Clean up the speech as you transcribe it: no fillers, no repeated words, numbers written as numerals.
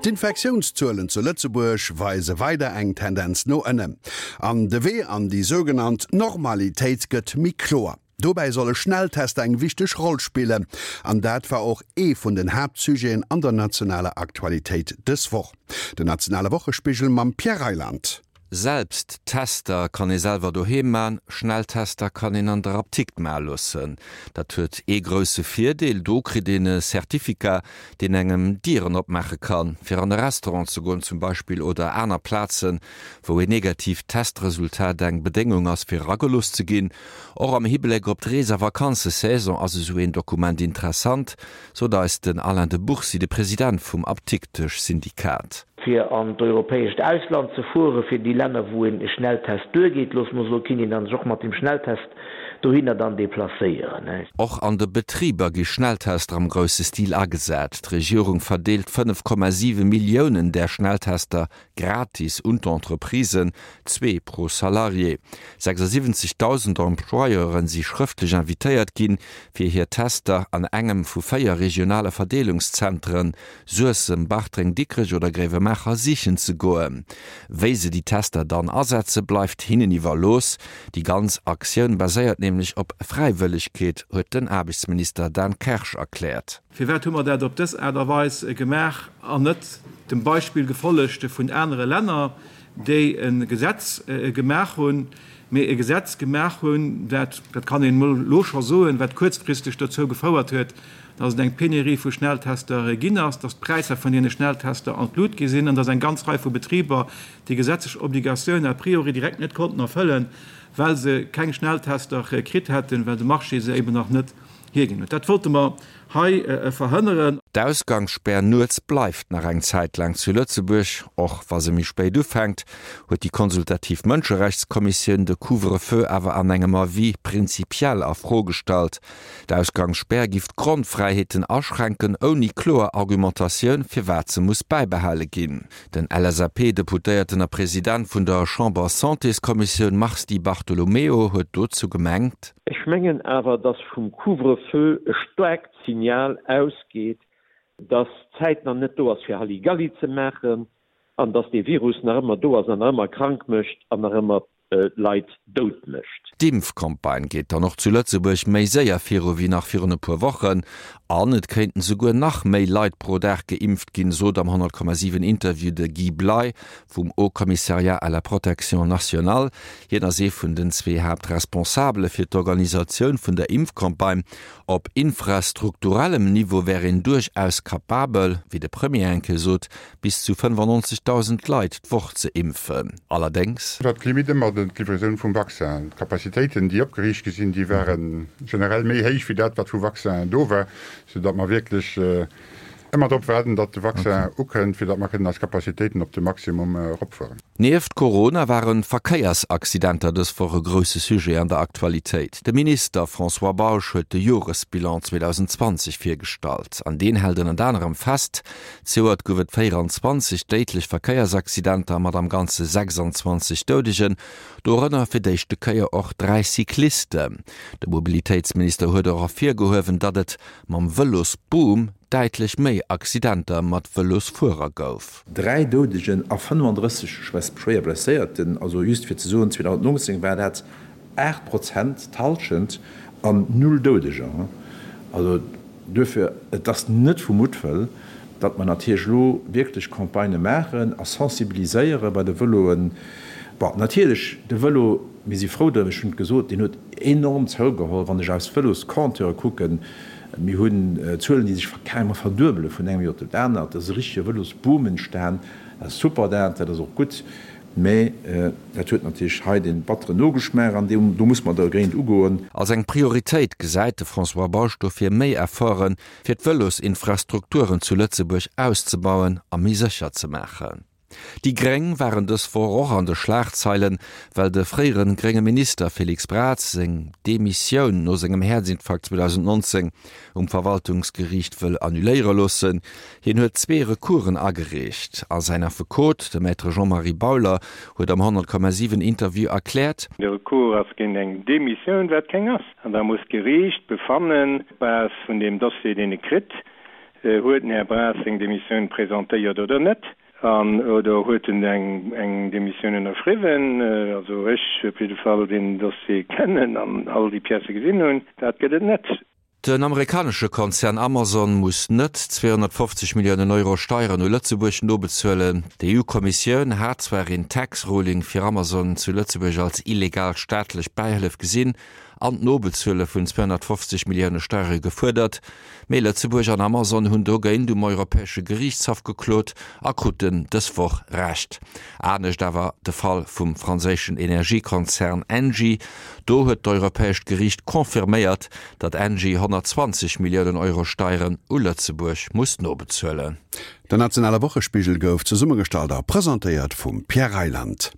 D'Infektiounszuelen zu Lëtzebuerg weise weider eng Tendenz no ënnen. An de Wee an déi sougenannt Normalitéit gëtt méi kloer. Dobäi solle Schnelltester eng wichteg Roll spillen. An dat war och ee vun den Haaptsujeten an der nationaler Aktualitéit dës Woch. Den nationale Wochespigel mam Pierre Reyland. Selbsttester kann ee selwer doheem man, Schnelltester kann een an der Aptikt maache loossen. Dat huet ee grousse Virdeel, do kritt een e Certificat, deen engem Dieren opmaache kann, fir an e Restaurant ze goen zum Beispill oder aner Plazen, wou een negatiivt Testresultat eng Bedéngung ass, fir eragelooss ze ginn. Och am Hibléck op d'Rees a Vakanzesaison ass esou een Dokument interessant, sot eis den Alain de Bourcy, de President vum Aptiktesch-Syndikat. Fir an d'europäescht Ausland ze fueren, fir déi Länner, wou e Schnelltest duergeet, loosse mer soen, kinnt een dann sech och mat dem Schnelltest dohinner dann deplacéieren. Och an de Betriber gi Schnelltester am grousse Stil agesat. D'Regierung verdeelt 5,7 Milliounen där Schnelltester gratis un d'Entreprisen, zwee pro Salarié. 76.000 Employeuren si schrëftlech invitéiert ginn, fir hir Tester an engem vu 4 regionale Verdeelungszentren, Suessem, Bartreng, Dikrech oder Gréiwemaacher, sichen ze goen. Wéi se déi Tester dann asetze bleift hinnen iwwerlooss. Déi ganz Aktioun baséiert nämlech op Fräiwëllegkeet, huet den Aarbechtsminister Dan Kersch erkläert. Firwat hu mer dat op dës Aart a Weis gemaach an net dem Beispill gefollegt vun anere Länner, déi e Gesetz gemaach hunn, mee e Gesetz gemaach hunn, dat, dat kann een emol elo scho soen, wat kuerzfristeg dozou gefouert huet, dass et eng Penurie vu Schnelltester ginn ass, dass d'Präisser vun deene Schnelltester an d'Lut gi sinn an dass eng ganz Rei vu Betriber déi gesetzlech Obligatioun a priori direkt net konnten erfëllen, well se keng Schnelltester kritt hätten, well de Marché se eben nach net hierginn huet. Dat wollte mer hei verhënneren. D'Ausgangsspär nuets bleift nach eng Zäit laang zu Lëtzebuerg, och wa se méi spéit ufänkt, huet déi konsultativ Mënscherechtskommissioun de Couvre-feu awer an engem Avis prinzipiell a Fro gestallt. D'Ausgangsspär giff d'Grondfräiheeten aschränken, ouni kloer Argumentatioun, firwat se muss bäibehale ginn. Den LSAP-Deputéierten a President vun der Chamber-Santéskommissioun Mars Di Bartolomeo huet dozou gemengt. Ech mengen awer, dass vum Couvre-feu e staarkt Signal ausgeet, dass d'Zäit nach net do ass fir Halligalli ze maachen an dass dee Virus nach ëmmer do ass an nach ëmmer krank mécht an nach ëmmer Leit dout mécht. D'Impfcampagne geet dann och zu Lëtzebuerg méi séier viru wéi nach virun e puer Wochen. An et kéinten souguer nach méi Leit pro Dag geimpft ginn, sot am 100,7 Interview de Guy Bley vum Haut Commissariat à la protection nationale. Hien ass ee vun den zwee Haaptresponsabele fir d'Organisatioun vun der Impfcampagne. Op infrastrukturellem Niveau wär een duerchaus capabel, wéi de Premier eng Kéier sot, bis zu 95.000 Leit d'Woch ze impfen. Allerdéngs. War d'Limite ëmmer d'Livraison vum Vaccin. D'Capacitéiten, déi opgeriicht gi sinn, déi ware generell méi héich wéi dat, wat vu Vaccin do war, soudatt mer wierklech ëmmer drop waarden, datt de Vaccin ukënnt, fir datt mer kënnen eis Capacitéiten op de Maximum eropfueren. Nieft Corona waren d'Verkéiersaccidenter dës Woch e grousse Sujet an der Aktualitéit. De Minister François Bausch huet de Joresbilan 2020 virgestallt. An deen hält ënnert anerem fest, Zejoert gouf et 24 déidlech Verkéiersaccidenter mat am Ganze 26 Doudegen, dorënner fir d'éischte Kéier och 3 Cyclisten. De Mobilitéitsminister huet och ervirgehuewen, datt et mam Vëlosboom däitlech méi Accidenter mat Vëlosfuerer gouf. 3 Doudegen a 35 schwéier Blesséierten, also just fir ze soen, 2019 war dat 8 Prozent, d'Hallschent, an null Doudeger. Also duerfir, et ass net vu Muttwëll, datt mer natierlech elo wierklech Campagnë maachen a sensibiliséiere bei de Vëloen. Bon, natierlech, de Vëlo, mir si frou drëm, ech hunn et gesot, deen huet enorm zougeholl. Wann ech eis Vëloscompteure kucken, mir hunn Zuelen, déi sech carrément verduebele vun engem Joer op dat anert. Et ass e richtege Vëlosboom entstan. Dat ass super, dat ass och gutt. Mä dat huet natierlech hei dee batteren Nogeschmaach an do muss mer dergéint ugoen. Als eng Prioritéit gesäit de François Bausch dofir méi Efforten, fir d'Vëlosinfrastrukturen zu Lëtzebuerg auszebauen a méi sécher ze maachen. Déi Gréng waren dës Woch och an de Schlagzeilen, well de fréiere grénge Minister Félix Braz seng Demissioun no sengem Häerzinfarkt 2019 um Verwaltungsgeriicht wëll annuléiere loossen. Hien huet zwee Recoursen agereecht a säin Affekot, de Maître Jean-Marie Bauler, huet am 100,7 Interview erkläert. De Recours ass géint eng Demissioun, wat keng ass. An da muss d'Geriicht befannen, op Base vun deem Dossier, deen e kritt. Huet den Här Braz seng Demissioun presentéiert oder net? An, oder huet en eng Demissioun ënnerschriwwen? Also ech op jidde Fall, deen den Dossier kennen an all déi Piècë gesinn hunn, dat gëtt et net. Den amerikanesche Konzern Amazon muss net 250 Milliounen Euro Steieren u Lëtzebuerg nobezuelen. D'EU-Kommissioun hat zwar een Tax Ruling fir Amazon zu Lëtzebuerg als illegal staatlech Bäihëllef gesinn an d'Nobezuele vun 250 Millioune Steiere gefuerdert, Mee Lëtzebuerg an Amazon hunn dogéint um Europäesche Geriichtshaff geklot a kruten dës Woch Recht. Anescht awer de Fall vum franséischen Energiekonzern Engie. Do huet d'Europäescht Geriicht confirméiert, datt Engie 120 Milliounen Euro Steieren u Lëtzebuerg muss nobezuelen. Den nationale Wochespigel gouf zesummegestallt a presentéiert vum Pierre Reyland.